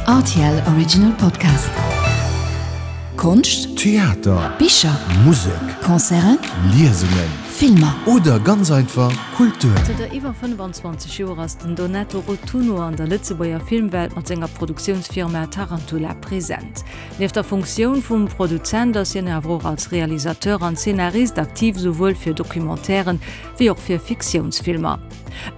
Rtl Original Podcast. Konscht, Theater, Bicher, Musek, Concerten, Liesungen, Filmer. Oder ganz einfach Kultur. Zënter iwwer 25 Joer ass den Donato Rotunno an der Lëtzebuerger Filmwelt mat senger Produktiounsfirma Tarantula present. Nieft der Funktioun vum Produzent ass hien awer och als Realisateur an Zeenarist aktiv, souwuel fir Documentairen wéi och fir Fiktiounsfilmer.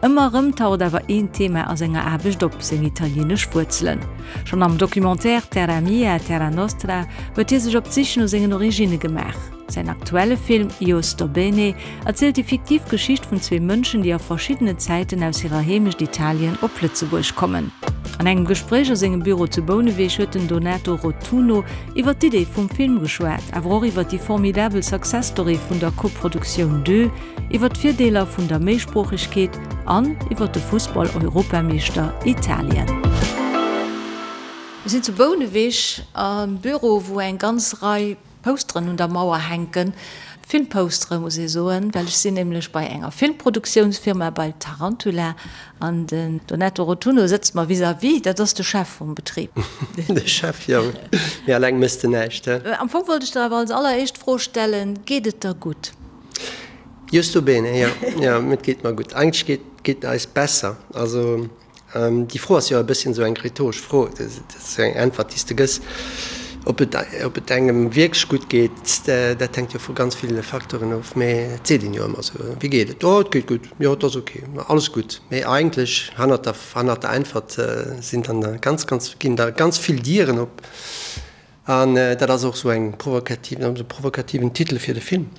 Ëmmer erëm taucht awer een Thema a senger Aarbecht op, seng italieenesch Wuerzelen. Schonn am Documentaire Terra mia, terra nostra huet hie sech op d'Sich no sengen Originne gemaach. Säin aktuelle Film Io sto bene erzielt déi fiktiv Geschicht vun zwee Mënschen, déi a verschiddene Zäiten aus hirer Heemecht Italien op Lëtzebuerg kommen. An engem Gespréich a sengem Büro zu Bouneweg huet den Donato Rotunno iwwer d'Idee vum Film geschwat, awer och iwwer déi formidabel Success Story vun der Koproduktioun Deux, iwwer d'Virdeeler vun der Méisproochegkeet an iwwer de Fussball-Europameeschter Italien. Mir sinn zu Bouneweg am Büro, wou eng ganz Rei Posteren un der Mauer hänken. Filmpostere muss ee soen, well ech sinn nämlech bei enger Filmproduktiounsfirma, bei Tarantula, an den Donato Rotunno sëtzt mer vis-à-vis, dat ass de Chef vum Betrib. De Chef, jo. Mee alleng méchs de näischt, he? Am Fong wollt ech der awer als alleréischt d'Fro stellen, Geet et der gutt? Justo bene, jo, jo, et geet mer gutt. Eigentlech geet geet et eis besser. Also déi Fro ass jo e bësschen esou eng rhetoresch Fro. Dat ass jo eng Äntwert, déi s de gëss. Ob et ob et engem wierklech gutt geet, dat hänkt jo vu ganz ville Facteuren of. Mee et seet een jo ëmmer esou, Wéi geet et? Oh, et geet gutt, jo, et ass ok, alles gutt. Mee eigentlech hannert der hannert der Äntwert sinn dann ganz, ganz ginn da ganz vill Dieren op. An dat ass och esou eng provokativ, e provokativen Titel fir de Film,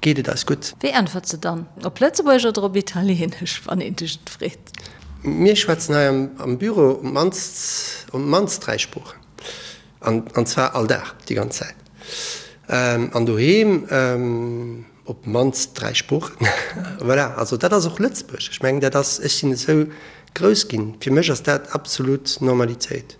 Geet et eis gutt? Wéi äntwert se dann? Op Lëtzebuergesch oder op Italieenesch, wann een dech et freet? Mir schwätzen hei am Büro op d'mannst, op d'mannst 3 Sproochen. An, an zwar all Dag, déi ganz Zäit. An doheem op d'mannst 3 Sproochen. Voilà, also dat ass och Lëtzebuerg. Ech mengen, dat ass, ech sinn esou grouss ginn, fir mech ass dat absolut Normalitéit.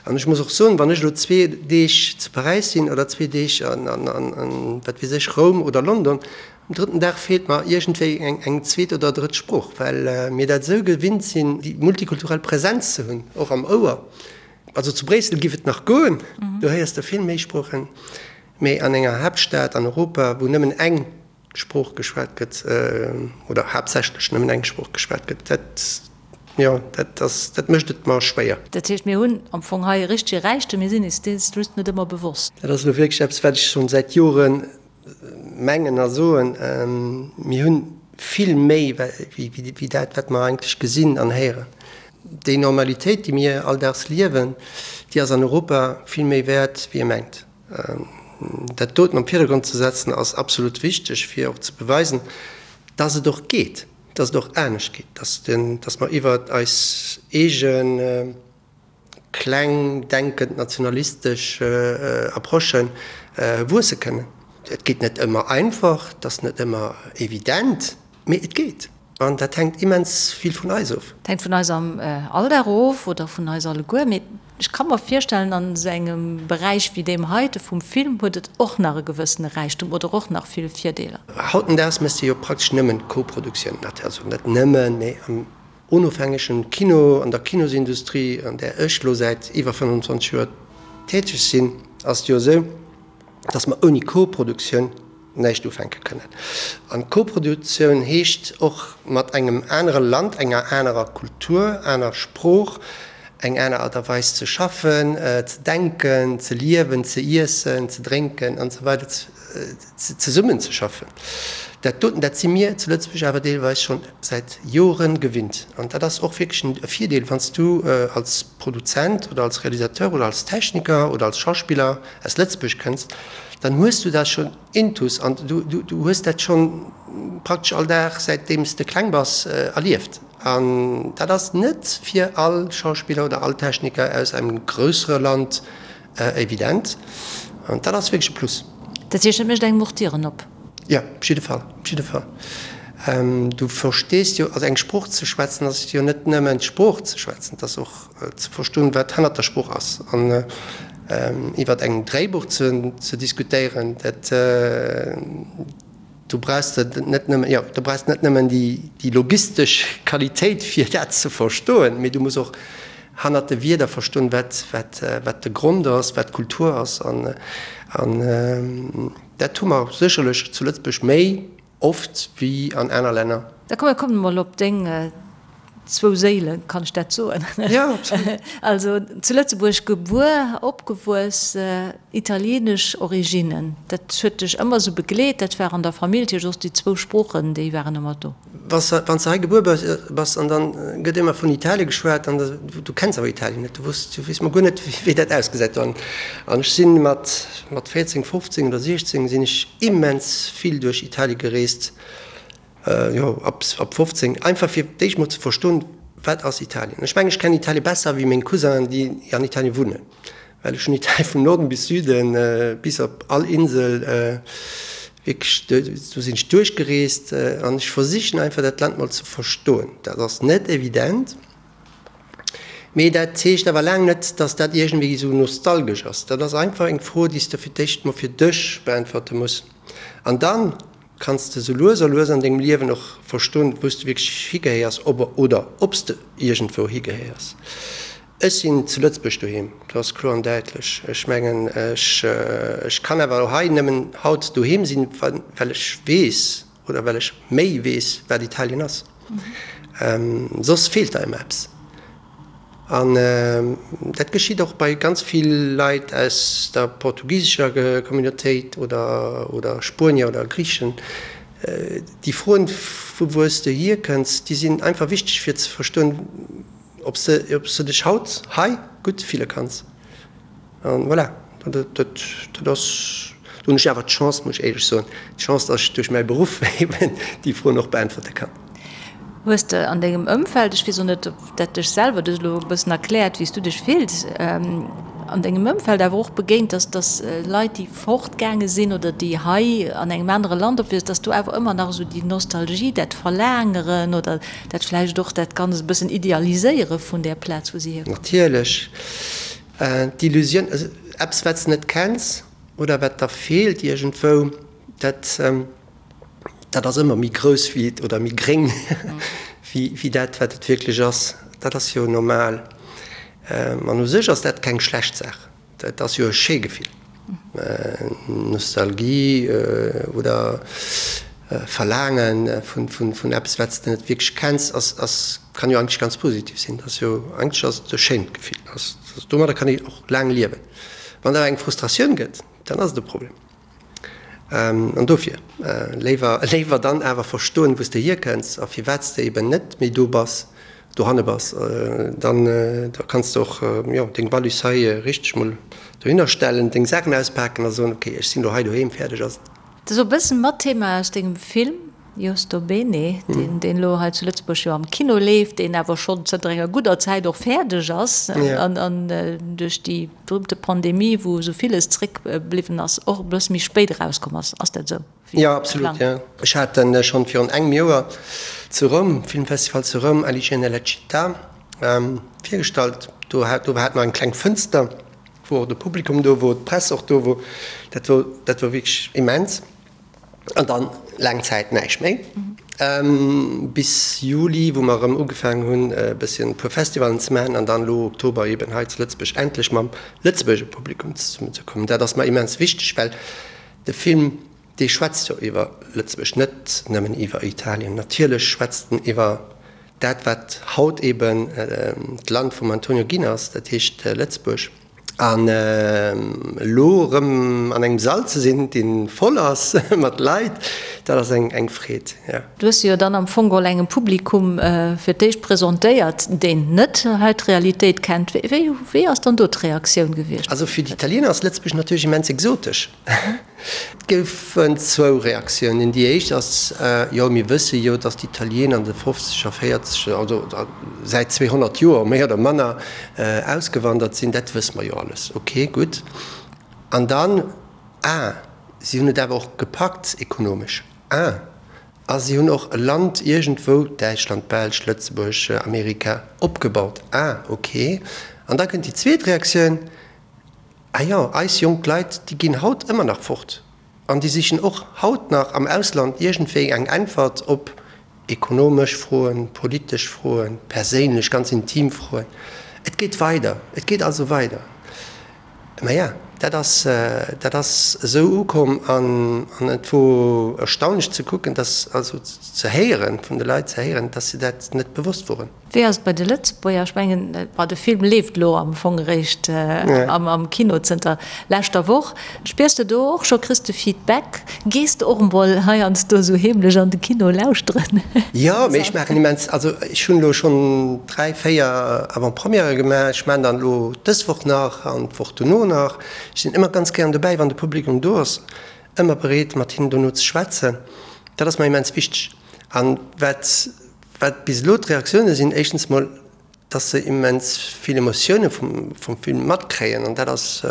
An ech muss och soen, wann ech elo zwee Deeg zu Paräis sinn oder zwee Deeg an, wat weess ech, Roum oder London, um drëtten Dag feelt mer iergendwéi eng zweet oder drëtt Sprooch, well mir dat esou gewinnt sinn, déi multikulturell Präsenz ze hunn, och am Ouer. Also zu Bréissel giff et nach goen, do héiers de vill méi Sproochen, mee an enger Haaptstad an Europa, wou nëmmen eng Sprooch geschwat gëtt, oder haaptsächlech nëmmen eng Sprooch geschwat gëtt, dat, jo, dat ass, dat mécht et mer schwéier. Dat heescht, mir hunn am Fong hei e richtege Räichtum, mir sinn eis dees just net ëmmer bewosst. Dat ass elo wierklech eppes, wat ech schonn säit Jore mengen a soen, Mir hunn vill méi wéi dat, wat mer eigentlech gesinn an héieren. Déi Normalitéit, déi mir alldaags liewen, déi ass an Europa vill méi wäert, wéi ee mengt. Dat doten am Virdergrond ze setzen ass absolut wichteg, fir och ze beweisen, dass et och geet, dass et och anescht geet, dass dass mer iwwert eis eege kleng denkend nationalistesch Approche wuesse kënnen. Et geet net ëmmer einfach, et ass net ëmmer evident, mee et geet. An dat hänkt immens vill vun eis of. Et hänkt vun eis am Alldag of oder vun eis alleguer. Mee ech ka mer virstellen, an esou engem Beräich wéi deem heite vum Film huet et och nach e gewëssene Räichtum oder och nach vill Virdeeler. Hautendaags méchs de jo praktesch nëmmen Koproduktioun, also net nëmmen, mee am onofhängegen Kino, an der Kinosindustrie, an där ech elo säit iwwer 25 Joer täteg sinn, ass et jo esou, dass mer ouni Koproduktioun näischt ufänke kënnen. An Koproduktioun heescht och mat engem anere Land, enger anerer Kultur, aner Sprooch, eng aner Art a Weis ze schaffen, ze denken, ze liewen, ze iessen, ze drénken an esou weider zesummen ze schaffen. Dat doten, dat si mir zu Lëtzebuerg awer deelweis schonn säit Joren gewinnt. An dat ass och wierklech e Virdeel, wann s du als Produzent oder als Realisateur oder als Techniker oder als Schauspiller aus Lëtzebuerg kënns, dann hues du dat schonn intus an du du hues dat schonn praktesch all Dag säitdeem s de kleng bass erlieft. An dat ass net fir all Schauspiller oder all Techniker aus engem grössere Land evident. An dat ass wierklech e Plus. Dat heescht, dat mécht engem och d'Dieren op? Jo, op jidde Fall, op jidde Fall. Du verstees jo, also eng Sprooch ze schwätzen ass jo net nëmmen d'Sprooch ze schwätzen, et ass och ze verstoen, wat hannert der Sprooch ass. An iwwer engem Dréibuch ze diskutéieren, dat, do brauchs de net nëmmen, jo, do brauchs de net nëmmen déi logistesch Qualitéit, fir dat ze verstoen, mee du muss och. Hannert de Wierder verstoen, wat, wat, wat de Grond ass, wat d'Kultur ass. An, an dat hu mer sécherlech zu Lëtzebuerg méi oft wéi an aner Länner. Da komm, mir kommen emol op deng zwou Séilen, kann ech dat soen? Jo, absolut. Also zu Lëtzebuerg gebuer, opgewuess, italienesch Originnen, dat huet dech ëmmer esou begleet, dat war an der Famill, dat heescht och déi zwou Sproochen, déi waren ëmmer do. Wanns de hei gebuer bass an dann gëtt ëmmer vun Italie geschwat an du kenns awer Italien net, du weess mol guer net wéi dat ausgesäit do. An ech sinn mat 14, 15 oder 16 sinn ech immens vill duerch Italie gereest, jo ab 15, einfach fir d'éischt mol ze verstoen, wat ass Italien. Ech mengen ech kennen Italie besser wéi meng Cousinen déi an Italien wunnen. Well ech hunn Italien vum Norden bis Süden, bis op all Insel wierklech, do sinn ech duerchgereest an ech versichen einfach dat Land mol ze verstoen. Dat ass net evident, mee dat heescht awer laang net, datt dat iergendwéi esou nostalgesch ass. Dat ass einfach eng Fro, déi s de fir d'éischt mol fir dech beäntwerte muss an dann kanns de sou lues a lues an dengem Liewen och verstoen, wou s de wierklech higehéiers oder ob s de iergendwou higehéiers. Ech sinn zu Lëtzebuerg doheem, dat ass kloer an däitlech. Ech mengen, ech, ech kann awer och hei nëmmen haut doheem sinn, well ech weess oder well ech méi weess, wat Italien ass. Soss feelt der ëmmer eppes. An dat geschitt och bei ganz vill Leit aus der portugisescher Communautéit oder, oder Spuenier oder Griichen. Déi Froen, vu wou s de hierkënns, déi sinn einfach wichteg fir ze verstoen, Ob s de, ob s de dech haut hei gutt fille kanns. An voilà, dat, dat, dat ass, do hunn ech awer d'Chance, muss ech éierlech soen, d'Chance, dass ech duerch mäi Beruff eben déi Froen och beäntwerte kann. Hues de an dengem Ëmfeld, ech weess och net, ob dat dech selwer, du hues elo e bëssen erkläert, wéi s du dech fills, an dengem Ëmfeld awer och begéint, dass, dass Leit, déi fortgaange sinn oder déi hei an engem anere Land opwiessen, dass do awer ëmmer nach esou déi Nostalgie, dat Verlaangeren oder Dat vläicht och dat Ganzt e bëssen idealiséiere vun där Plaz, wou si hierkommen. Natierlech. D'Illusioun, eppes wat s de net kenns oder wat der feelt iergendwou, dat, dat ass ëmmer méi grouss wéi et, oder méi gréng wéi dat wat et wierklech ass. Dat ass jo normal. An u sech ass dat keng schlecht Saach. Dat ass jo e schéi Gefill. Nostalgie oder Verlaange vun eppes, wat s de net wierklech kenns, ass, kann jo eigentlech ganz positiv sinn. Dat ass jo, eigentlech ass et e schéint Gefill. Domadder kann een och laang liewen. Wann et awer eng Frustratioun gëtt, dann ass et e Problem. An dofir, léiwer, léiwer dann awer verstoen, wou s de hierkënns a firwat s de eben net méi do bass, dohanne bass, dann da kanns de och, jo, deng Wallis hei richteg mol dohinner stellen, deng Saachen auspaken a soen, ok, ech sinn elo hei doheem, fäerdeg ass et. Dat ass och e bëssen mat Thema aus dengem Film. Io sto bene, deen elo hei zu Lëtzebuerg jo am Kino leeft, deen awer schonn zënter enger gudder Zäit och fäerdeg ass an duerch déi berühmte Pandemie, wou esou villes zréckbliwwen ass, och e bësse méi spéit erauskomm ass. Ass dat esou? Jo, absolut, jo. Ech hat en schonn virun engem Joer zu Roum, Filmfestival zu Roum, Alice nella città, virgestallt. Do hat do hat mer eng kleng Fënster, wou och de Publikum do wor, d'Press och do wor. Dat wor dat wor wierklech immens. An dann laang Zäit näischt méi. Bis Juli, wou mer erëm ugefaangen hunn, e bësschen e puer Festivalen ze maachen an dann elo Oktober eben hei zu Lëtzebuerg endlech mam Lëtzebuerger Publikum zesummen ze kommen. Dat ass mer immens wichteg, well de Film, dee schwätzt jo iwwer Lëtzebuerg, net nëmmen iwwer Italien. Natierlech schwätzt en iwwer dat, wat haut eben d'Land vum Antonio ginn ass, dat heescht Lëtzebuerg. An elo erëm an engem Sall ze sinn, dee voll ass mat Leit, dat ass eng Freed, jo. Du hues se jo dann am Fong geholl engem Publikum fir d'éischt presentéiert, deen net hei d'Realitéit kennt. Wéi ass dann do d'Reaktioun gewiescht? Also fir d'Italiener ass Lëtzebuerg natierlech immens exotesch. Et goufen zwou Reaktiounen. Déi éischt ass, Jo, mir wësse jo, datt d'Italiener an de fofzeger, véierzeger, also säit 200 Joer méi oder manner ausgewandert sinn. Dat wësse mer jo alles. Ok, gutt. An dann, Ah, si hunn et awer och gepackt ekonomesch. Ah, a si hunn och e Land iergendwou, Däitschland, Belsch, Lëtzebuerg, Amerika, opgebaut. Ah, ok. An da kënnt déi zweet Reaktioun, Ah jo, eis jonk Leit, déi ginn haut ëmmer nach fort an déi sichen och haut nach am Ausland iergendwéi eng Äntwert op ekonomesch Froen, politesch Froen, perséinlech, ganz intim Froen. Et geet weider, et geet also weider. Maja, dat ass, dat ass esou ukomm an et wor erstaunlech ze kucken, dass, also ze héieren, vun de Leit ze héieren, dass se dat net bewosst woren. Wéi ass et bei de Lëtzebuerger? Ech mengen, bon, de Film leeft elo am Fong eréischt am Kino zënter leschter Woch. Spiers de do och scho, kriss de Feedback? Gees de och emol heiansdo esou heemlech an de Kino lauschteren? Jo, mee ech maachen immens, also ech hunn elo schonn 3, 4 Avant-premièrë gemaach. Ech maachen dann elo dës Woch nach an d'Woch dono nach. Ech sinn ëmmer ganz gären dobäi, wann de Publikum do ass, ëmmer bereet mat hinnen dono ze schwätzen. Dat ass mer immens wichteg. An wat, wat bis elo d'Reaktioune sinn, éischtens mol, dass se immens vill Emotioune vum, vum Film matkréien an dat ass,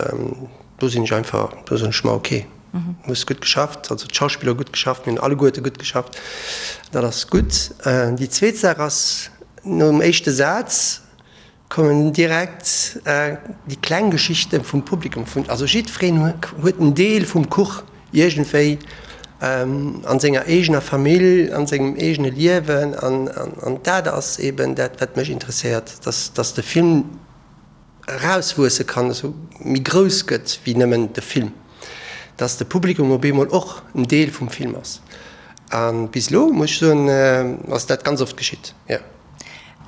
do sinn ech einfach, do soen ech mer, ok, hues gutt geschafft, also d'Schauspiller hu gutt geschafft, mir hunn alleguerte gutt geschafft, dat ass gutt. Déi zweet Saach ass, nom éischte Saz kommen direkt déi kleng Geschichte vum Publikum, vun, also jiddwereen huet en Deel vum Kuch iergendwéi an senger eegener Famill, an sengem eegene Liewen an dat ass eben dat wat mech interesséiert, dass dass de Film erauswuesse kann, esou méi grouss gëtt wéi nëmmen de Film, dass de Publikum op eemol och en Deel vum Film ass. A bis elo muss ech soen, ass dat ganz oft geschitt, jo.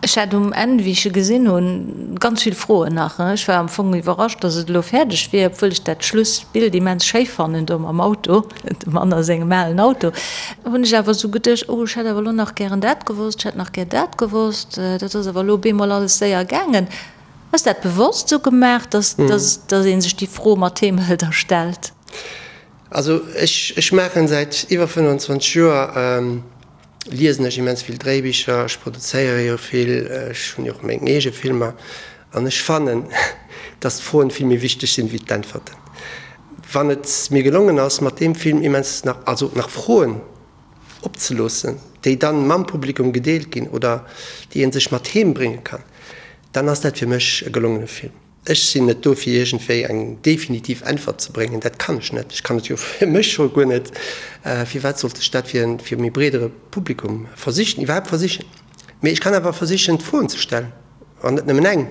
Ech hat um Enn, wéi ech e gesinn hunn, ganz vill Froen nach. Ech war am Fong iwwerrascht, datt et elo fäerdeg wier, obwuel ech dat Schlussbild immens schéi fannen, do mam Auto, dem Mann a sengem alen Auto. Hunn ech awer esou geduecht, oh, ech hätt awer elo nach gären dat gewosst, ech hätt nach gär dat gewosst. Dat ass awer elo op eemol alles séier gaangen. Ass dat bewosst esou gemaach, datt datt ee sech déi Fro mat heem hëlt a stellt? Also ech, ech maachen säit iwwer 25 Joer, liesen ech immens vill Dréibicher, ech produzéiere jo vill, ech hunn jo och meng eege Filmer an ech fannen, dass d'Froen vill méi wichteg sinn wéi d'Äntwerten. Wann et mir gelongen ass, mat deem Film immens nach, also nach Froen opzeloossen, déi dann mam Publikum gedeelt ginn oder déi ee sech mat heem brénge kann, dann ass dat fir mech e gelongene Film. Ech sinn net do fir iergendwéi eng definitiv Äntwert ze bréngen, dat kann ech net. Ech kann et jo fir mech scho guer net. Firwat sollt ech dat fir e méi breedere Publikum versichen, iwwerhaapt versichen? Mee ech kann awer versichen d'Froen ze stellen, an net nëmmen eng.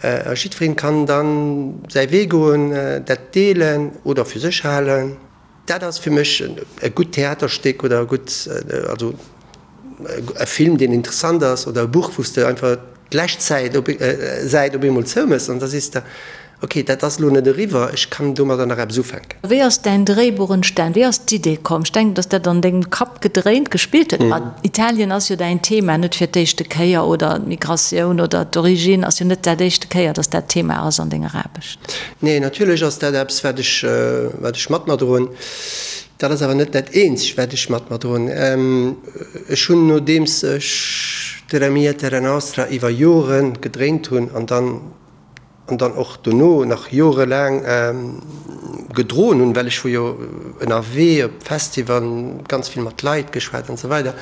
A jiddwereen kann dann säi Wee goen, dat deelen oder fir sech halen. Dat ass fir mech e gutt Theaterstéck oder e gutt, also e Film, deen interessant ass, oder e Buch, wou s de einfach d'lescht Säit op Säit op eemol zoumëss an da sees de, ok, dat ass elo net eriwwer, ech kann domadder nach eppes ufänken. Wéi ass däin Dréibuch entstan? Wéi ass d'Idee komm? Ech denken, datt dat an dengem Kapp gedréint, gespillt huet. Ma Italien ass jo däin Thema, net fir d'éischte Kéier, oder d'Migratioun oder d'Origine ass jo net dat éischte Kéier, datt dat Thema ass an denger Aarbecht. Nee, natierlech ass dat eppes, wat ech, wat ech mat mer droen. Dat ass awer net dat eenzegt, wat ech mat mer droen. Ech hunn, nodeems ech Terra mia, terra nostra iwwer Jore gedréint hunn an dann, an dann och dono nach jorelaang gedroen hunn, well ech wor jo ënnerwee op Festivalen, ganz vill mat Leit geschwat an esou weider,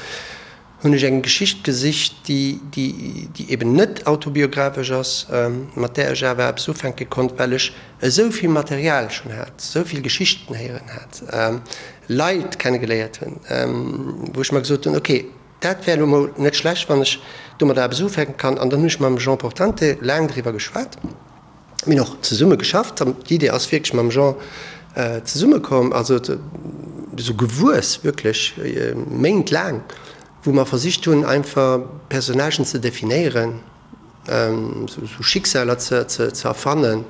hunn ech eng Geschicht gesicht, déi, déi, déi eben net autobiographesch ass, mat där ech awer eppes ufänke konnt, well ech esou vill Material schonn hat, esou vill Geschichten héieren hat, Leit kennegeléiert hunn, wou ech mer gesot hunn, ok, dat wär elo mol net schlecht, wann ech domadder eppes ufänke kann. An dann hunn ech mam Jean Portante laang driwwer geschwat. Mir hunn och zesumme geschafft an d'Idee ass wierklech mam Jean zesumme komm, also esou gewuess wierklech Méint laang, wou mer versicht hunn einfach Personnagen ze definéieren, esou Schicksaler ze erfannen,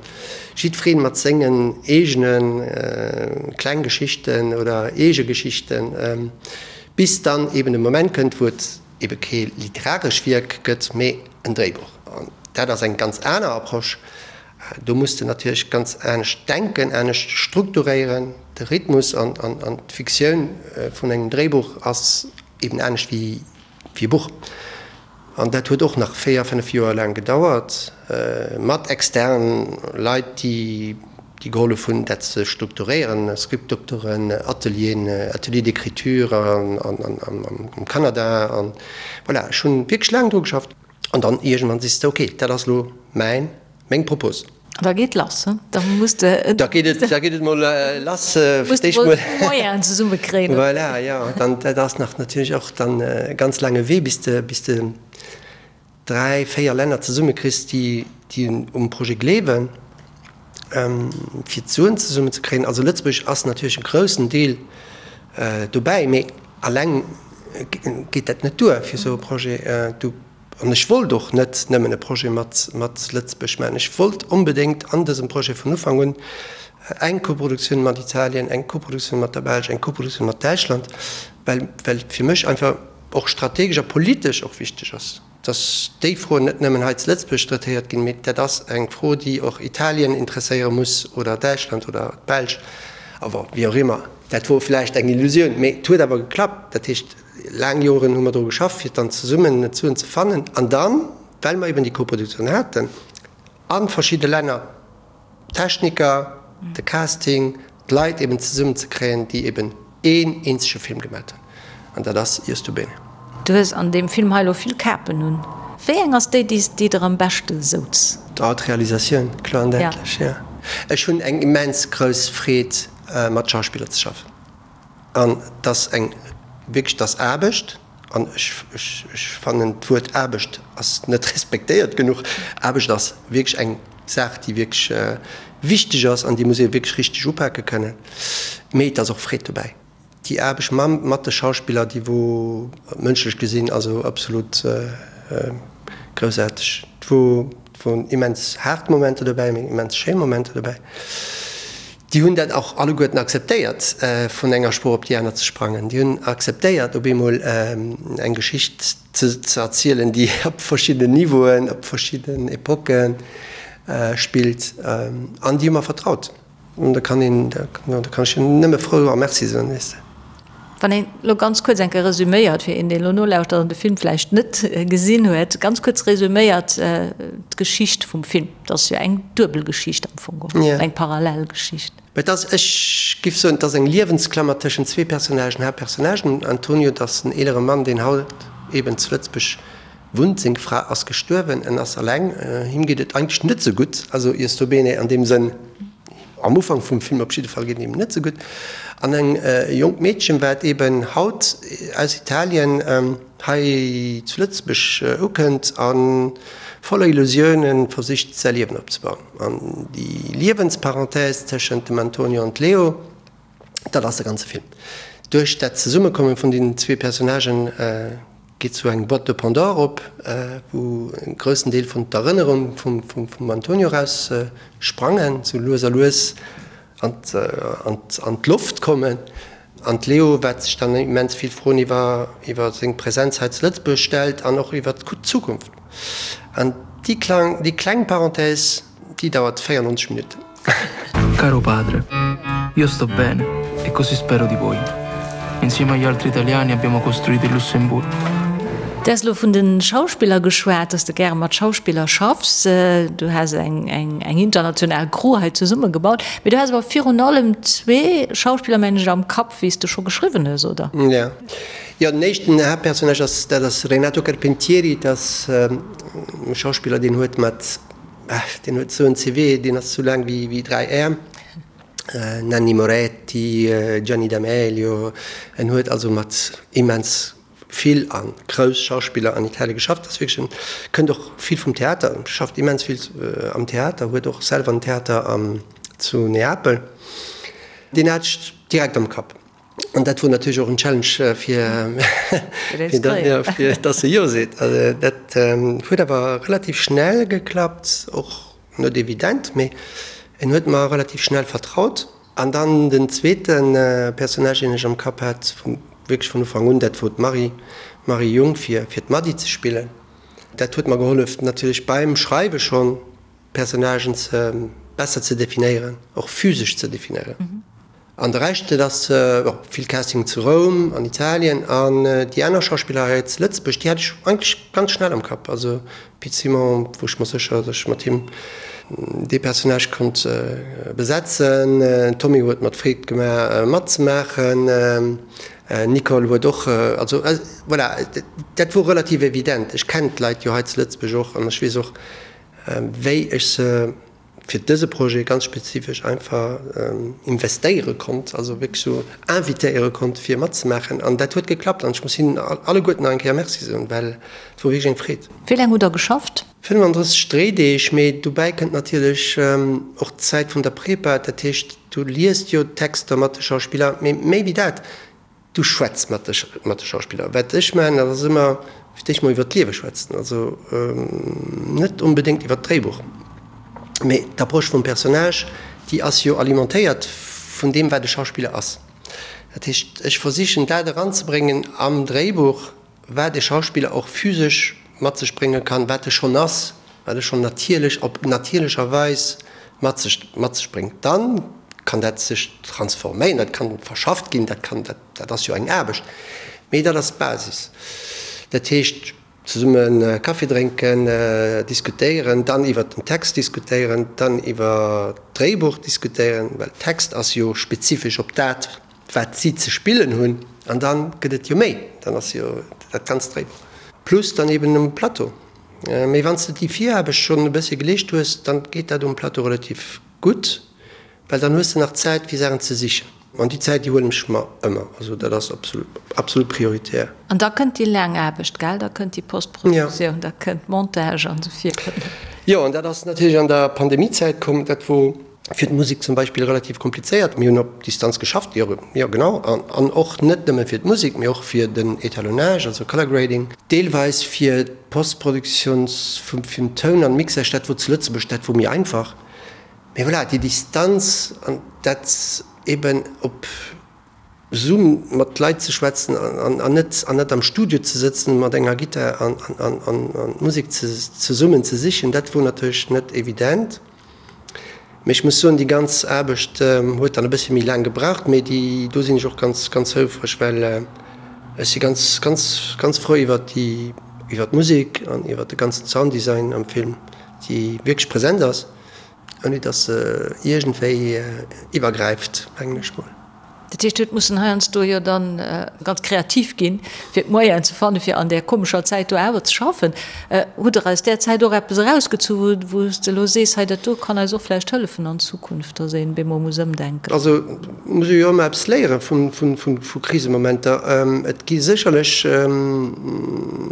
jiddweree mat sengen eegene kleng Geschichten oder eege Geschichten, bis dann eben de Moment kënnt, wou et ebe kee literaresch Wierk gëtt, mee en Dréibuch. An dat ass eng ganz aner Approche. Do muss de natierlech ganz anescht denken, anescht strukturéieren. De Rhythmus an d'Fiktioun vun engem Dréibuch ass eben anescht wéi e Buch. An dat huet och nach 4, 5 Joer laang gedauert, mat externen Leit, déi déi gehollef hunn, dat ze strukturéieren, Scriptdoktoren, Atelieren, Ateliers d'écriture am Kanada. An voilà, ech hunn wierklech laang dru geschafft. An dann iergendwann sees de, ok, dat ass elo mäin, meng Propos. An da geet lass, he? Da muss de. Da geet et, da geet et mol lass. Muss de mol d'Moyenen zesummekréien. Voilà, jo. Dann, dat ass nach natierlech och dann e ganz laange Wee, bis de, bis de 3, 4 Länner zesummekriss, déi. déi um Projet gleewen, fir d'Suen zesummen ze kréien. Also Lëtzebuerg ass natierlech e groussen Deel dobäi, mee alleng geet dat net duer fir esou e Projet. Du, an ech wollt och net nëmmen e Projet mat mat Lëtzebuerg maachen, ech wollt onbedéngt an dësem Projet vun Ufank un eng Koproduktioun mat Italien, eng Koproduktioun mat der Belsch, eng Koproduktioun mat Däitschland, well well et fir mech einfach och strategesch a politesch och wichteg ass. dass déi Froen net nëmmen hei zu Lëtzebuerg traitéiert ginn, mee dat ass eng Fro, déi och Italien interesséiere muss oder Däitschland oder d'Belsch, a bon, wéi och immer. Dat wor vläicht eng Illusioun, mee et huet awer geklappt. Dat heescht, laang Joren hu mer dru geschafft, fir dann zesummen d'Suen ze fannen. An dann, well mer eben déi Koproduktioun haten a verschidde Länner, d'Techniker, de Casting, d'Leit eben zesummen ze kréien, déi eben een eenzege Film gemat hunn, an dat ass Io sto bene. Du hues an deem Film hei elo vill Kapen un. Wéi eng ass déi, déi der am beschte souz? Oh, d'Realisatioun, kloer an däitlech, jo. Ech hunn eng immens grouss Freed, mat Schauspiller ze schaffen. An 't ass eng, wierklech, 't ass Aarbecht. An ech, ech, ech fannen, d'Wuert Aarbecht ass net respektéiert genuch. Aarbecht ass wierklech eng Saach, déi wierklech wichteg ass an déi muss ee wierklech richteg upake kënnen. Mee et ass och Freed dobäi. Déi Aarbecht mam, mat de Schauspiller, déi wor mënschlech gesinn also absolut groussaarteg. Et wor, et woren immens haart Momenter dobäi, mee immens schéi Momenter dobäi. Déi hunn dat och alleguerten akzeptéiert, vun enger Sprooch op déi aner ze sprangen. Déi hunn akzeptéiert, op eemol eng Geschicht ze erzielen, déi op verschiddenen Niveauen, op verschidden Epoque spillt. An déi hu mer vertraut. An da kann een, da kann ech hinnen nëmme frou a Merci soen, weess de. Wann een elo ganz kuerz eng Kéier resüméiert, fir een, deen elo nolauschtert an de Film vläicht net gesinn huet, ganz kuerz resüméiert d'Geschicht vum Film. Et ass jo eng duebel Geschicht am Fong geholl, eng parallel Geschicht. Et ass, ech giff soen, et ass eng Liewensklammer tëschent zwee Personnagen, Haaptpersonnagen. Antonio, dat ass en eelere Mann, deen haut eben zu Lëtzebuerg wunnt. Seng Fra ass gestuerwen, en ass alleng, him geet et eigentlech net esou gutt, also Io sto bene an deem Sënn. Am Ufank vum Film op jidde Fall geet et him net sou gutt. An eng jonkt Meedchen, wat eben haut aus Italien hei zu Lëtzebuerg ukënnt a voller Illusiounen versicht säi Liewen opzebauen. An déi Liewensparenthèse tëschent dem Antonio an Leo, dat ass de ganze Film. Duerch dat Zesummekomme vun deenen zwee Personnagen geet sou eng Boîte de Pandore op, wou e groussen Deel vun d'Erënnerung vum Antonio eraus sprangen, sou lues a lues an d'Loft kommen. An d'Leo, wat sech dann immens vill Froen iwwer seng Präsenz hei zu Lëtzebuerg stellt an och iwwer d'Zukunft. An déi kleng Parenthèse, déi dauert 94 Minutten. Caro padre, io sto bene e così spero di voi. Insieme agli altri italiani abbiamo costruito il Lussemburgo. Du has elo vun de Schauspiller geschwat, dass de gäre mat Schauspiller schaffs. Du has eng international Crew hei zesummegebaut. Mee du has awer virun allem zwee Schauspiller, mengen ech, am Kapp, wéi s de scho geschriwwen hues, oder? Jo, jo, den éischten Haaptpersonnage ass, dat ass Renato Carpentieri. Dat ass e Schauspiller, deen huet mat Deen huet esou en CV, deen ass esou laang wéi 3 Äerm. Nanni Moretti, Gianni D'Amelio, en huet also mat immens vill a grouss Schauspiller an Italie geschafft. Ass wierklech en, kënnt och vill vum Theater, schafft immens vill am Theater, huet och selwer en Theater zu Neapel. Deen hat ech direkt am Kapp. An dat wor natierlech och en Challenge fir fir dass e Jo seet. Also dat huet awer relativ schnell geklappt, och net evident, mee en huet mer relativ schnell vertraut. An dann den zweete Personnage, deen ech am Kapp hat, wierklech vun Ufank un, dat wor d'Marie, d'Marie Jung, fir fir d'Mady ze spillen. Dat huet mer gehollef natierlech beim Schreiwe schonn, d'Personnagen ze besser ze definéieren, och physesch ze definéieren. An de Rescht, dat ass vill Casting zu Roum, an Italien. An déi aner Schauspiller hei zu Lëtzebuerg, déi hat ech eigentlech ganz schnell am Kapp. Also Pit Simon, wor ech mer sécher, datt ech mat him dee Personnage konnt besetzen. Tommy huet mer d'Freed gemaach matzemaachen. Nicole huet och, also voilà, dat wor relativ evident. Ech kennen d'Leit jo hei zu Lëtzebuerg och an ech weess och, wéi ech se. fir dëse Projet ganz spezifesch einfach investéiere konnt, also wierklech sou invitéiere konnt fir matzemaachen an dat huet geklappt an ech muss hinnen alleguerten nach eng Kéier Merci soen, well et wor wierklech eng Freed. Wéi laang hutt Der geschafft? 35 Dréideeg, mee dobäi kënnt natierlech och d'Zäit vun der Prepa, dat heescht du liest jo d'Texter mat de Schauspiller, mee méi wéi dat, Du schwätz mat de mat de Schauspiller. Wat ech maachen, dat ass ëmmer fir d'éischt mol iwwer d'Liewe schwätzen, also net onbedéngt iwwer d'Dréibuch, mee d'Approche vum Personnage, déi ass jo alimentéiert vun deem, wat e Schauspiller ass. Dat heescht, ech versichen dat eranzebréngen am Dréibuch, wat e Schauspiller och physesch mat sech brénge kann, wat e schonn ass, wat e schonn natierlech, op natierlecher Weis mat sech, mat sech bréngt. Dann kann dat sech transforméieren, dat kann verschafft ginn, dat kann, dat, dat ass jo eng Aarbecht, mee dat ass d'Basis. Dat heescht, zesumme Kaffi drénken, diskutéieren, dann iwwert den Text diskutéieren, dann iwwer d'Dréibuch diskutéieren, well Text ass jo spezifesch op dat, wat si ze spillen hunn, an da gëtt et jo méi, dann ass jo dat ganzt Dréibuch plus dann eben um Plateau. Mee wann s de déi Viraarbecht schonn e bëssche geleescht hues, dann geet dat um Plateau relativ gutt, well dann hues de nach Zäit fir Saachen ze sichen. An déi Zäit, déi huelen ech mer ëmmer, also dat ass absolut, absolut prioritär. An da kënnt déi laang Aarbecht, gell? Da kënnt déi Postproduktioun, da kënnt d'Montage an esou virun. Jo, an dat ass natierlech an der Pandemiezäit komm, dat wor Fir d'Musek zum Beispill relativ komplizéiert. Mir hunn op Distanz geschafft, jo, jo genau, an och net nëmme fir d'Musek, mee och fir den Etalonnage, also Color Grading, deelweis fir d'Postproduktioun vum vum Toun an Mixage, dat wor zu Lëtzebuerg, dat wor méi einfach. Mee voilà, déi Distanz an dat eben op Zoom mat Leit ze schwätzen an net an net am Studio ze sëtzen mat enger Gittar an an d'Musek zesummen ze sichen, dat wor natierlech net evident. Mee ech muss soen, déi ganz Aarbecht huet dann e bëssche méi laang gebraucht, mee déi do sinn ech och ganz, ganz houfreg, well ech si ganz, ganz, ganz frou iwwert déi, iwwert d'Musek an iwwert de ganzen Sounddesign am Film, déi wierklech present ass, ouni datt se iergendwéi iwwergräift, mengen ech mol. Dat heescht, huet mussen heiansdo jo dann ganz kreativ ginn, fir d'Moyenen ze fannen, fir an där komescher Zäit do awer ze schaffen. Hutt Der aus där Zäit och eppes erausgezu wou s de elo sees, hei dat do kann eis och vläicht hëllefen an Zukunft, datt een bemol muss ëmdenken? Also muss ee jo ëmmer eppes léiere vu Krisemomenter. Et gi sécherlech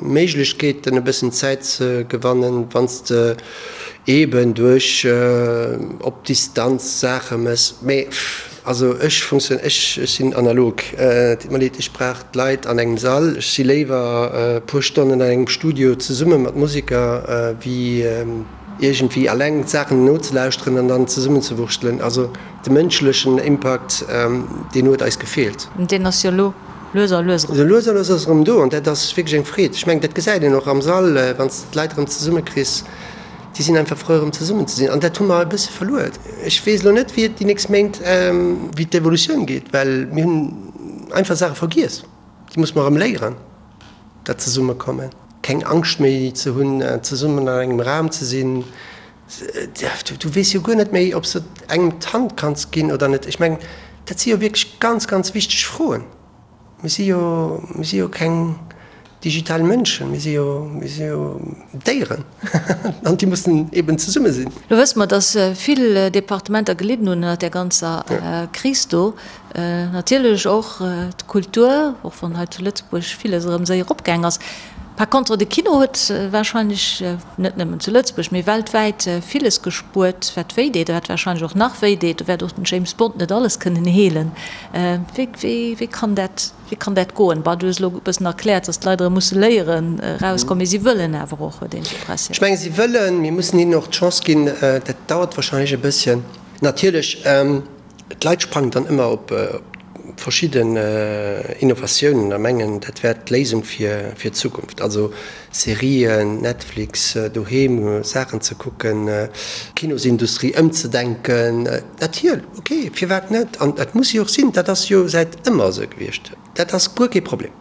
Méiglechkeeten e bëssen Zäit ze gewannen, wann s de eeben duerch op Distanz Saache méchs. Mee Also ech funktioun, ech sinn analog, et deet mer leed, ech brauch d'Leit an engem Sall. Ech si léiwer e puer Stonnen an engem Studio zesumme mat Museker, wéi iergendwéi alleng d'Saachen nozelauschteren an dann zesummenzewurschtelen. Also de mënschlechen Impakt, deen huet eis gefeelt. Deen ass jo elo lues a lues erëm. Lues a lues ass erëm do an dat ass wierklech eng Freed. Ech mengen, dat gesäit een och am Sall, wann s de d'Leit erëm zesummekriss. Déi sinn einfach frou erëm zesummen ze sinn an dat hu mer e bësse verluer. Ech weess elo net wéi et déi nächst Méint, wéi d'Evolutioun geet, well mir hunn einfach Saache vergiess. Déi musse mer erëm léieren, dat Zesummekommen, keng Angscht méi ze hunn, zesummen an engem Raum ze sinn. Du weess jo guer net méi, ob s de engem d'Hand kanns ginn oder net. Ech mengen, dat si jo wierklech ganz, ganz wichteg Froen. Mir si jo, mir si jo keng digital Mënschen, mir si jo, mir si jo Déieren an déi mussen eben zesumme sinn. Lo wësse mer, datt vill Departementer gelidden hunn ënnert där ganzer Kris do. Natierlech och d'Kultur, och wann hei zu Lëtzebuerg villes erëm séier eropgaang ass. Par contre, de Kino huet warscheinlech, net nëmmen zu Lëtzebuerg, mee weltwäit villes gespuert, wat wéi deet a wat warscheinlech och nach wéi deet. Do wäert och den James Bond net alles kënnen heelen. Wéi, wéi, wéi kann dat, wéi kann dat goen? Bon, du hues elo e bëssen erkläert, datt d'Leit erëm musse léieren erauskommen, mee si wëllen awer och, huet een d'Impressioun. Ech menge si wëllen, mir mussen hinnen och d'Chance ginn. Dat dauert warscheinlech e bësschen. Natierlech. D'Leit sprangen dann ëmmer op verschidden Innovatiounen a mengen, dat wär d'Léisung fir d'Zukunft. Also Serien, Netflix, doheem Saachen ze kucken, d'Kinosindustrie ëmzedenken. Natierl, ok, firwat net? An dat muss jo och sinn, dat ass jo säit ëmmer esou gewiescht. Dat ass guer kee Problem.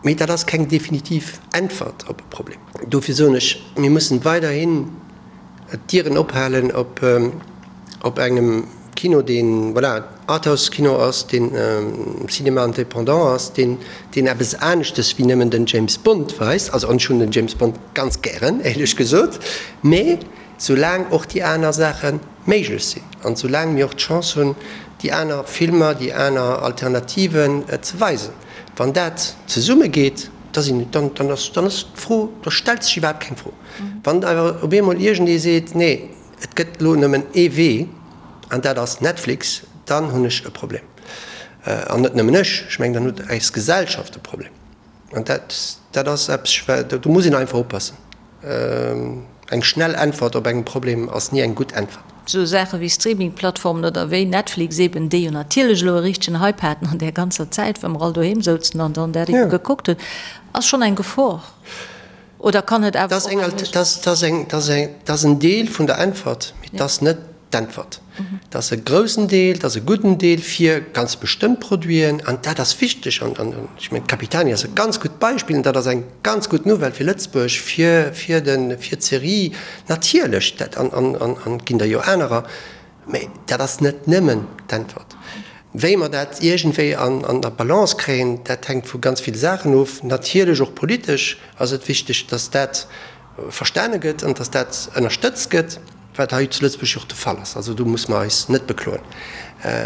Mee dat ass keng definitiv Äntwert op e Problem. Dofir soen ech, mir mussen weiderhin d'Dieren ophalen op engem Kino, deen, voilà, Arthouse-Kino ass, deen Cinéma indépendant ass, deen, deen eppes aneschtes wéi nëmmen den James Bond weist. Also, an ech hunn den James Bond ganz gären, éierlech gesot, mee soulaang och déi aner Saache. méiglech sinn an soulaang mir och d'Chance hunn, déi aner Filmer, déi aner Alternativen ze weisen. Wann dat zesumme geet, da sinn, dann, dann ass, dann ass d'Fro, da stellt sech iwwerhaapt keng Fro. Wann awer op eemol iergendee seet, nee, et gëtt elo nëmmen ee Wee an dat ass Netflix, dann hunn ech e Problem. An net nëmmen ech, ech mengen, dann huet eis Gesellschaft e Problem. An dat, dat ass eppes, do muss een einfach oppassen. Eng schnell Äntwert op engem Problem ass ni eng gutt Äntwert. Esou Saache wéi Streaming-Plattformen oder wéi Netflix eben, déi jo natierlech elo e richtegen Hype haten an där ganzer Zäit, wou mer all doheem souzen an dann dat ebe gekuckt hunn, ass schonn eng Gefor. Oder kann et awer och eng Méiglechkeet sinn? Dat ass en Deel vun der Äntwert, mee et ass net d'Äntwert. Dat ass e groussen Deel, dat ass e gudden Deel fir ganz bestëmmt Produiten an dat ass wichteg. An ech mengen, d'Capitani ass e ganz gutt Beispill an dat ass eng ganz gutt Nouvelle fir Lëtzebuerg, fir, fir de, fir d'Serie natierlech, dat an, an, an, an et ginn der jo anerer. Mä dat ass net nëmmen d'Äntwert. Wéi mer dat iergendwéi an, an der Balance kréien, dat hänkt vu ganz ville Saachen of. Natierlech och politesch ass et wichteg, dass dat verstane gëtt an dass dat ënnerstëtzt gëtt, wat hei zu Lëtzebuerg jo och de Fall ass. Also do muss mer eis net bekloen.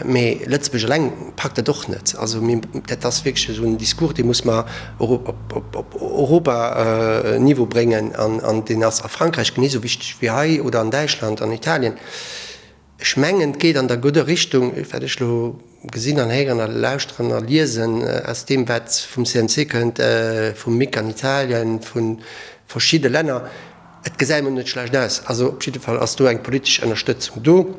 Mee Lëtzebuerg eleng packt dat och net. Also mir, dat ass wierklech esou en Discours, dee muss mer och op, op, op Europaniveau bréngen an, an deen ass a Frankräich genee esou wichteg wéi hei oder an Däitschland, an Italien. Ech mengen, et geet an der gudder Richtung, wat ech elo gesinn an héieren a lauschteren a liesen aus deem, wat vum CNC kënnt, vum MIC an Italien, vu verschidde Länner. Et gesäit emol net schlecht aus. Also op jidde Fall ass do eng politesch Ënnerstëtzung do.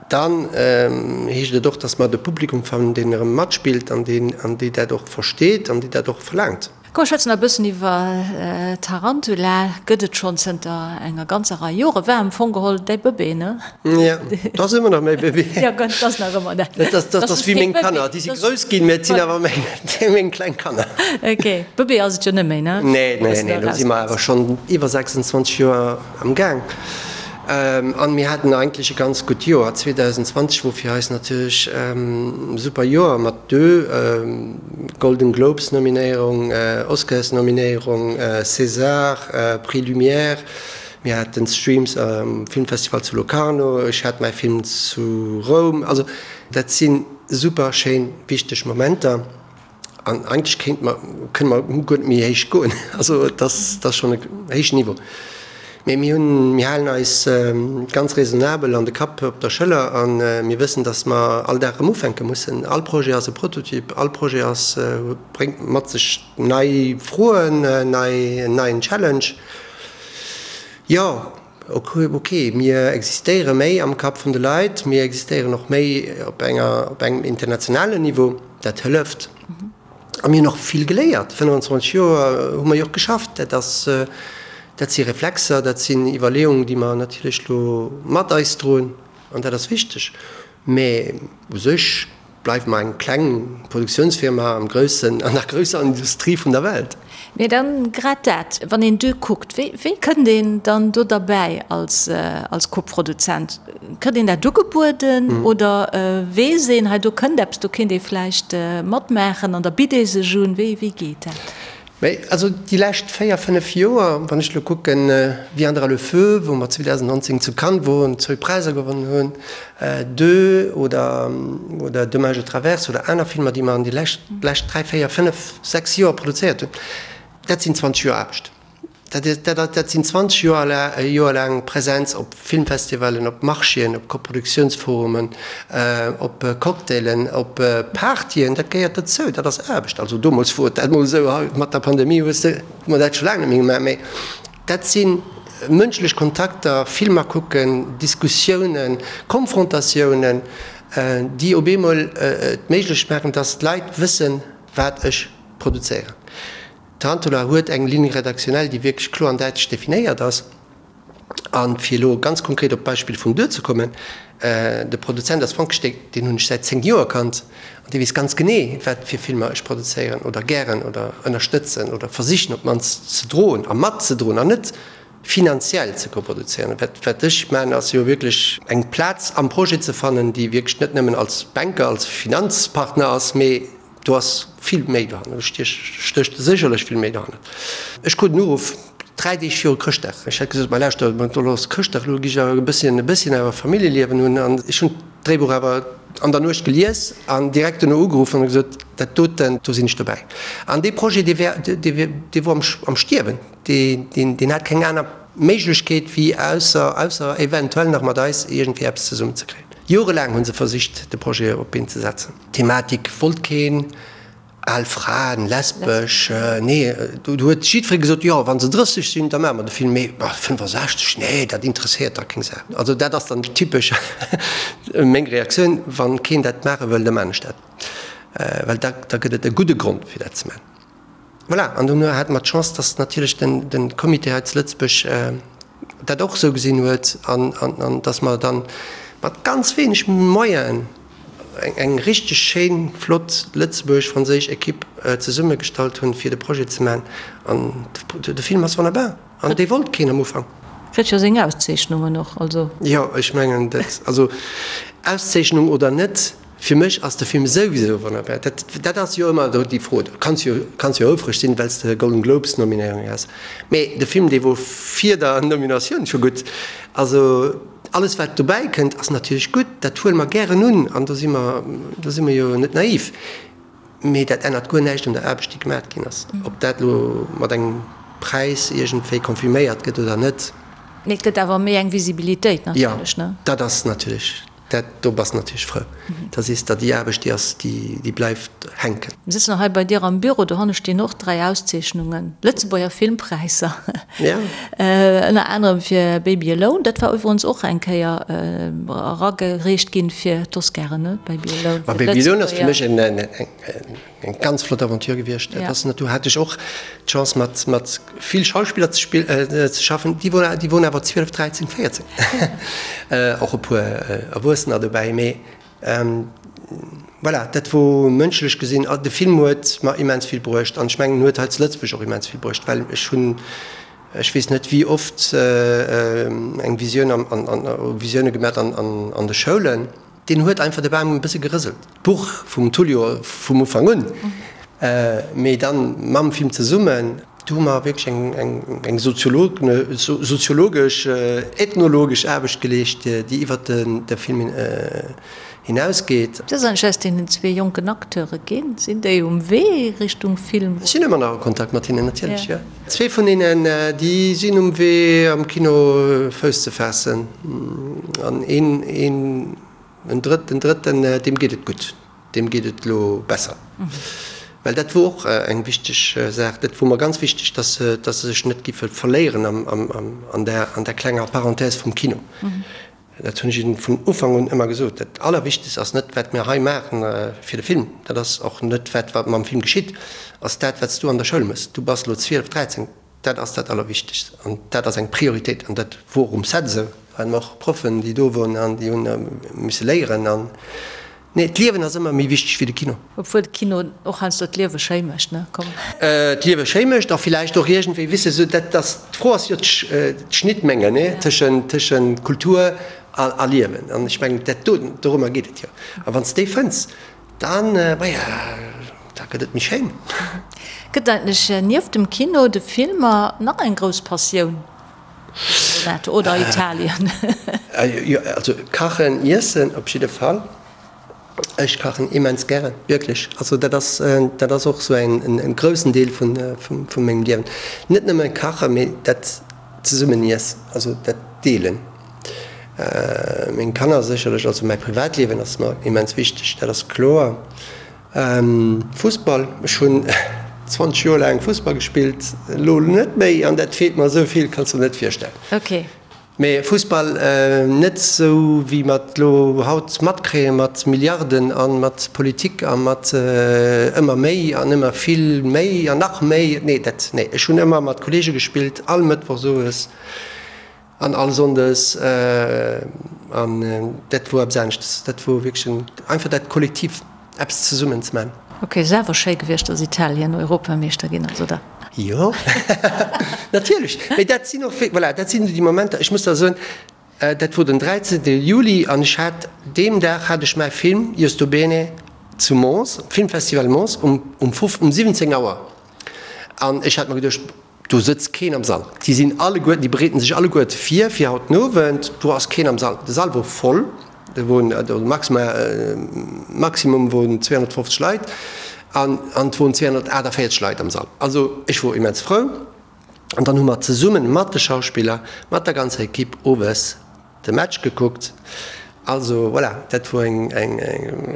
Dann heescht et och, datt mer de Publikum fannen, deen erëm matspillt an deen, an déi dat och versteet an déi dat och verlaangt. Komm, mer schwätzen nach e bëssen iwwer Tarantula. Gëtt et schonn zënter enger ganzer Rei Jore. War am Fong geholl däi Bëbee, ne? Jo, et ass ëmmer nach mäi Bëbee. Jo, et ass nach ëmmer dat. Dat ass, dat ass wéi meng Kanner. Déi si grouss ginn, mä et sinn awer meng, meng kleng Kanner. Ok. Bëbee ass et jo net méi, ne? Nee, nee, nee. Elo si mer awer schonn iwwer 26 Joer am Gaang. An mir haten eigentlech e ganz gutt Joer. 2020 wor fir eis natierlech e super Joer mat deux Golden Globes Nominéierung, Oscars Nominéierung, César, Prix Lumière. Mir haten Streams um Filmfestival zu Locarno, ech hat mäi Film zu Roum. Also dat si super schéin wichteg Momenter. An eigentlech kéint mer, kënne mer guer net méi héich goen. Also et ass, et ass schonn e héijen Niveau. Mee mir hunn, mir halen eis ganz raisonnabel an de Kapp op der Schëller a mir wëssen, datt mer all Dag erëm ufänke mussen. All Projet ass e Prototyp, all Projet ass, bréngt mat sech nei Froen, nei, en neien Challenge. Jo, ok, mir existéiere méi am Kapp vun de Leit, mir existéieren och méi op enger, op engem internationalen Niveau, dat hëlleft. A mir hunn och vill geléiert, 25 Joer hu mer jo och geschafft, dat ass, dat si Reflexer, dat sinn Iwwerleeungen, déi mer natierlech elo mat eis droen an dat ass wichteg. Mä u sech bleiwe mer eng kleng Produktiounsfirma am groussen, an der grousser Industrie vun der Welt. Mee dann grad dat, wann een Deux kuckt, wéi, wéi kënnt een dann do derbäi als, als Koproduzent? Kritt een dat ugebueden oder weess een, hei do kënnt eppes, do kéint ee vläicht matmaachen an da bitt ee sech un? Wéi, wéi geet dat? Mee also déi lescht 4, 5 Joer, wann ech elo kucken, Viendra le feu, wou mer 2019 zu Cannes woren, zwou Präisser gewonnen hunn, Deux oder oder Demain je traverse oder aner Filmer, déi mer an déi lescht lescht 3, 4, 5, 6 Joer produzéiert hunn, dat sinn 20 Joer Aarbecht. Dat, dat, dat sinn 20 Joer, Joer laang Präsenz op Filmfestivalen, op Marchéen, op Koproduktiounsforumen, op Cocktailen, op Partyen. Dat gehéiert dozou, dat ass Aarbecht. Also domols wor et dat mol esou, haut mat der Pandemie hues de, hu mer dat scho laang net méi gemaach. Mee dat si mënschlech Kontakter, Filmer kucken, Diskussiounen, Konfrontatiounen, déi op eemol et méiglech maachen, dass d'Leit wëssen, wat ech produzéieren. Tarantula huet eng Ligne rédactionnelle, déi wierklech kloer an däitlech definéiert ass. A fir elo ganz konkret op d'Beispill vum Duer ze kommen, De Produzent ass Frank Steck, deen hunn ech säit 10 Joer kannt an dee weess ganz genee, wat fir Filmer ech produzéieren oder gären oder ënnerstëtzen oder versichen op d'mannst ze droen a matzedroen an net finanziell ze koproduzéieren. Wat, wat ech maachen, ass jo wierklech eng Plaz am Projet ze fannen, déi wierklech net nëmmen als Banker, als Finanzpartner ass, mee Do ass vill méi dohannert, do stécht sécherlech vill méi dohannert. Ech krut en Uruff. 3 Deeg viru Chrëschtdag. Ech hat gesot, Ma lauschter, elo ass Chrëschtdag, elo gi ech awer e bësschen, e bësschen awer Familljeliewen hunn. An ech hunn d'Dréibuch awer an der Nuecht gelies an direkt duerno ugeruff an hu gesot, Dat doten, do sinn ech dobäi. An dee Projet, dee wär, dee, dee wor am, am Stierwen. Dee, deen, deen hat keng aner Méiglechkeet, wéi ausser, ausser eventuell nach mat eis iergendwéi eppes zesummenzekréien. Jorelaang hu se versicht, de Projet op d'Been ze setzen. D'Thematik wollt keen. Al Fraen, lesbesch, nee, do huet jiddweree gesot, jo, wa se 30 sinn, da maache mer de Film, mee 65, nee, dat interesséiert da keng Sau. Also dat ass dann typesch meng Reaktioun, wa keen dat maache wëll, da maan ech dat, well da da gëtt et e gudde Grond fir dat ze maachen. Voilà, an dono hate mer d'Chance, datt natierlech den de Comité hei zu Lëtzebuerg dat och esou gesinn huet an an datt mer dann mat ganz wéineg Moyenen, eng richteg schéin, flott lëtzebuergesch-franséisch Equipe zesummegestallt hunn, fir de Projet ze maachen. An de Film ass wonnerbar. An dee wollt keen am Ufank. Kritt jo seng Auszeechnungen och, also. Jo, ech mengen dat, also Auszeechnung oder net, fir mech ass de Film souwisou wonnerbar. Dat, dat ass jo ëmmer déi Fro. Du kanns jo, kanns jo houfreg sinn, well s de Golden Globes Nominéierung has, mee de Film, dee wor vir der Nominatioun scho gutt. Also. Alles wat dobäi kënnt ass natierlech gutt, dat huele mer gären un an do si mer, do si mer jo net naiv. Mee dat ännert guer näischt un der Aarbecht déi gemat ginn ass, ob dat elo mat engem Präis iergendwéi confirméiert gëtt oder net. Mee et gëtt awer méi eng Visibilitéit natierlech, ne? Jo, dat ass natierlech Dat, do bass natierlech frou. Da sees der, déi Aarbecht, déi ass, déi bleift hänken. Mir sëtzen och hei bei dir am Büro, dohanne stinn och 3 Auszeechnungen, Lëtzebuerger Filmpräisser, ënner anerem fir Baby Alone. Dat war iwwerens och eng Kéier eragereecht ginn fir d'Oscaren, ne? Baby Alone. Ma Baby Alone ass fir mech eng. Eng ganz flott Aventure gewiescht. Dat ass, do hat ech och d'Chance mat mat vill Schauspiller ze spill ze schaffen, déi wor déi woren awer 12, 13, 14. Och e puer Erwuessener dobäi, mee voilà, dat wor mënschlech gesinn, de Film huet mer immens vill bruecht an ech mengen en huet hei zu Lëtzebuerg och immens vill bruecht, well ech hunn, ech weess net wéi oft eng Visioun an an Visioune gemat an an de Schoulen. Deen huet einfach de Bam e bësse gerëselt. D'Buch vum Tullio vum Ufank un, mee dann mam Film zesummen, do hu mer wierklech eng soziologesch, ethnologesch Aarbecht geleescht, déi iwwert de Film hinausgeet. Wat ass eigentlech aus deenen zwee jonken Acteure ginn? Sinn déi um Wee Richtung Film? Ech sinn ëmmer nach a Kontakt mat hinnen, natierlech, jo. Zwee vun hinnen, déi sinn um Wee am Kino Fouss ze faassen. An een, een, en drëtt, den drëtten, deem geet et gutt, deem geet et elo besser. Well dat wor och eng wichteg Saach, dat wor mer ganz wichteg, dass se, dass se sech net giffe verléieren am, am, am, an där, an där klenger Parenthèse vum Kino. Dat hunn ech hinnen vun Ufank un ëmmer gesot. Dat Allerwichtegst ass net, wat mir hei maachen fir de Film, dat ass och net wat, wat mam Film geschitt, ass dat, wat s du an der Schoul méchs. Du bass elo 12, 13, dat ass dat Allerwichtegst an dat ass eng Prioritéit. An dat wor um Set esou. Waren och Proffen, déi do woren an déi hunn misse léieren. An nee, d'Liewen ass ëmmer méi wichteg wéi de Kino. Obwuel de Kino och heiansdo d'Liewe schéi mécht, ne? Komm. D'Liewe schéi mécht a villäicht och iergendwéi, weess de, sou dat ass, d'Fro ass jo d'Schnittmenge, ne, tëschent, tëschent Kultur a, a Liewen. An ech mengen, dat do, dorëmmer geet et jo. A wann s de déi fënns, dann, maja, da gëtt et méi schéin. Gëtt eigentlech nieft dem Kino, de Filmer, nach eng grouss Passioun, Renato, oder Italien? Jo, also kachen, iessen op jidde Fall. Ech kachen immens gären, wierklech. Also dat ass, dat ass och esou en en groussen Deel vun vu mengem Liewen. Net nëmme kachen, mee dat zesummen iessen, also dat Deelen. Meng Kanner sécherlech, also mäi Privatliewen ass mer immens wichteg, dat ass kloer. Fussball, ech hunn 20 Joer laang Fussball gespillt, elo net méi an dat feelt mer esou vill, kanns de der net virstellen. Okay. Mee Fussball net esou wéi mer et elo haut matkréie mat Milliarden a mat Politik a mat ëmmer méi an ëmmer vill méi an nach méi. Nee, dat, nee. Ech hunn ëmmer mat Kollege gespillt, all Mëttwochs owes an all Sonndes an dat wor eppes aneschtes. Dat wor wierklech en, einfach dat Kollektiv. Eppes zesummen ze man. Ok, ass awer schéi gewiescht dass Italien Europameeschter ginn ass, oder? Jo, natierlech. Mee dat sinn och, voilà, dat sinn déi Momenter, ech muss der soen, dat wor den 13. Juli an ech hat, deem Dag hat ech mäi Film Io sto bene zu Mons, Filmfestival Mons, um, um 17 Auer. An ech hat mer geduecht,. Do sëtzt keen am Sall. Déi sinn alleguerten, déi bereeten sech alleguerte vir fir haut den Owend. Do ass keen am Sall. De Sall wor voll, do woren, also maximal, Maximum woren 250 Leit an an et woren 248 Leit am Sall. Also ech wor immens frou. An dann hu mer zesummen mat de Schauspiller, mat der ganzer Equipe owes de Match gekuckt. Also voilà, dat wor eng, eng, eng,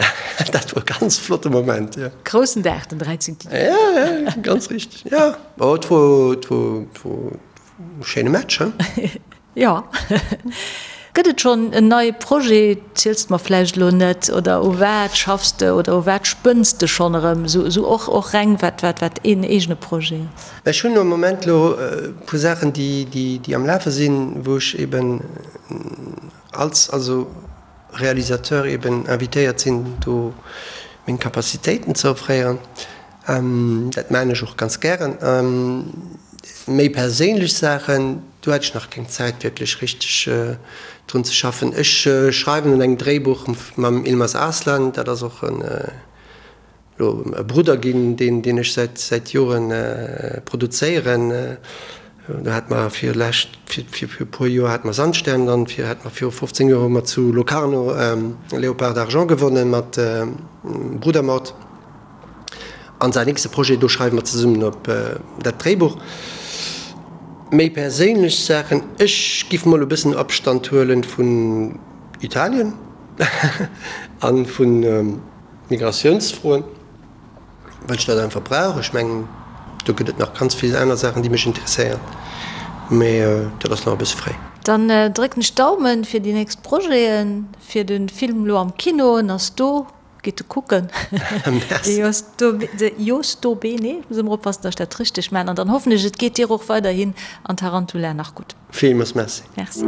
dat wor e ganz flotte Moment, jo. Groussen Dag, den 13. Juni. Ja, ja, ganz richteg, jo. Oh, et wor, et wor, et wor e schéine Match, he? Jo. Gëtt et schonn en neie Projet? Ziels de mer vläicht elo net, oder u wat schaffs de oder u wat spënns de schonn erëm, esou, esou och, och reng wat, wat, wat een eegene Projet ass? Ech hunn am Moment elo e puer Saachen, déi, déi, déi am Lafe sinn, wou ech eben als also Realisateur eben invitéiert sinn, do meng Capacitéiten ze offréieren. Dat maachen ech och ganz gären. Méi perséinlech Saachen, do hat ech nach keng Zäit wierklech richteg drun ze schaffen. Ech schreiwen un engem Dréibuch mam Ilmaz Arslan, dat ass och en elo e Brudder ginn, deen deen ech säit säit Joren produzéieren. Do hate mer fir lescht fir fir e puer Joer hate mer Sandstern, dann fir hate mer viru 15 Joer hu mer zu Locarno Léopard d'Argent gewonnen mat Brudermord. An säin nächste Projet, do schreiwe mer zesummen op dat Dréibuch. Méi perséinlech Saachen, ech giff mol e bëssen Abstand huelen vun Italien an vun Migratiounsfroen, well ech dat einfach brauch. Ech mengen, do gëtt et nach ganz vill aner Saachen, déi mech interesséieren, mee dat ass nach e bësse fréi. Dann drécken ech d'Daumen fir déi nächst Projeten, fir de Film elo am Kino, en ass do. Gitt e kucken. De Josto Bene, muss ëmmer oppassen, datt ech dat richteg maachen. An dann hoffen ech, et geet dir och weiderhin an Tarantula nach gutt. Villmools Merci. Merci.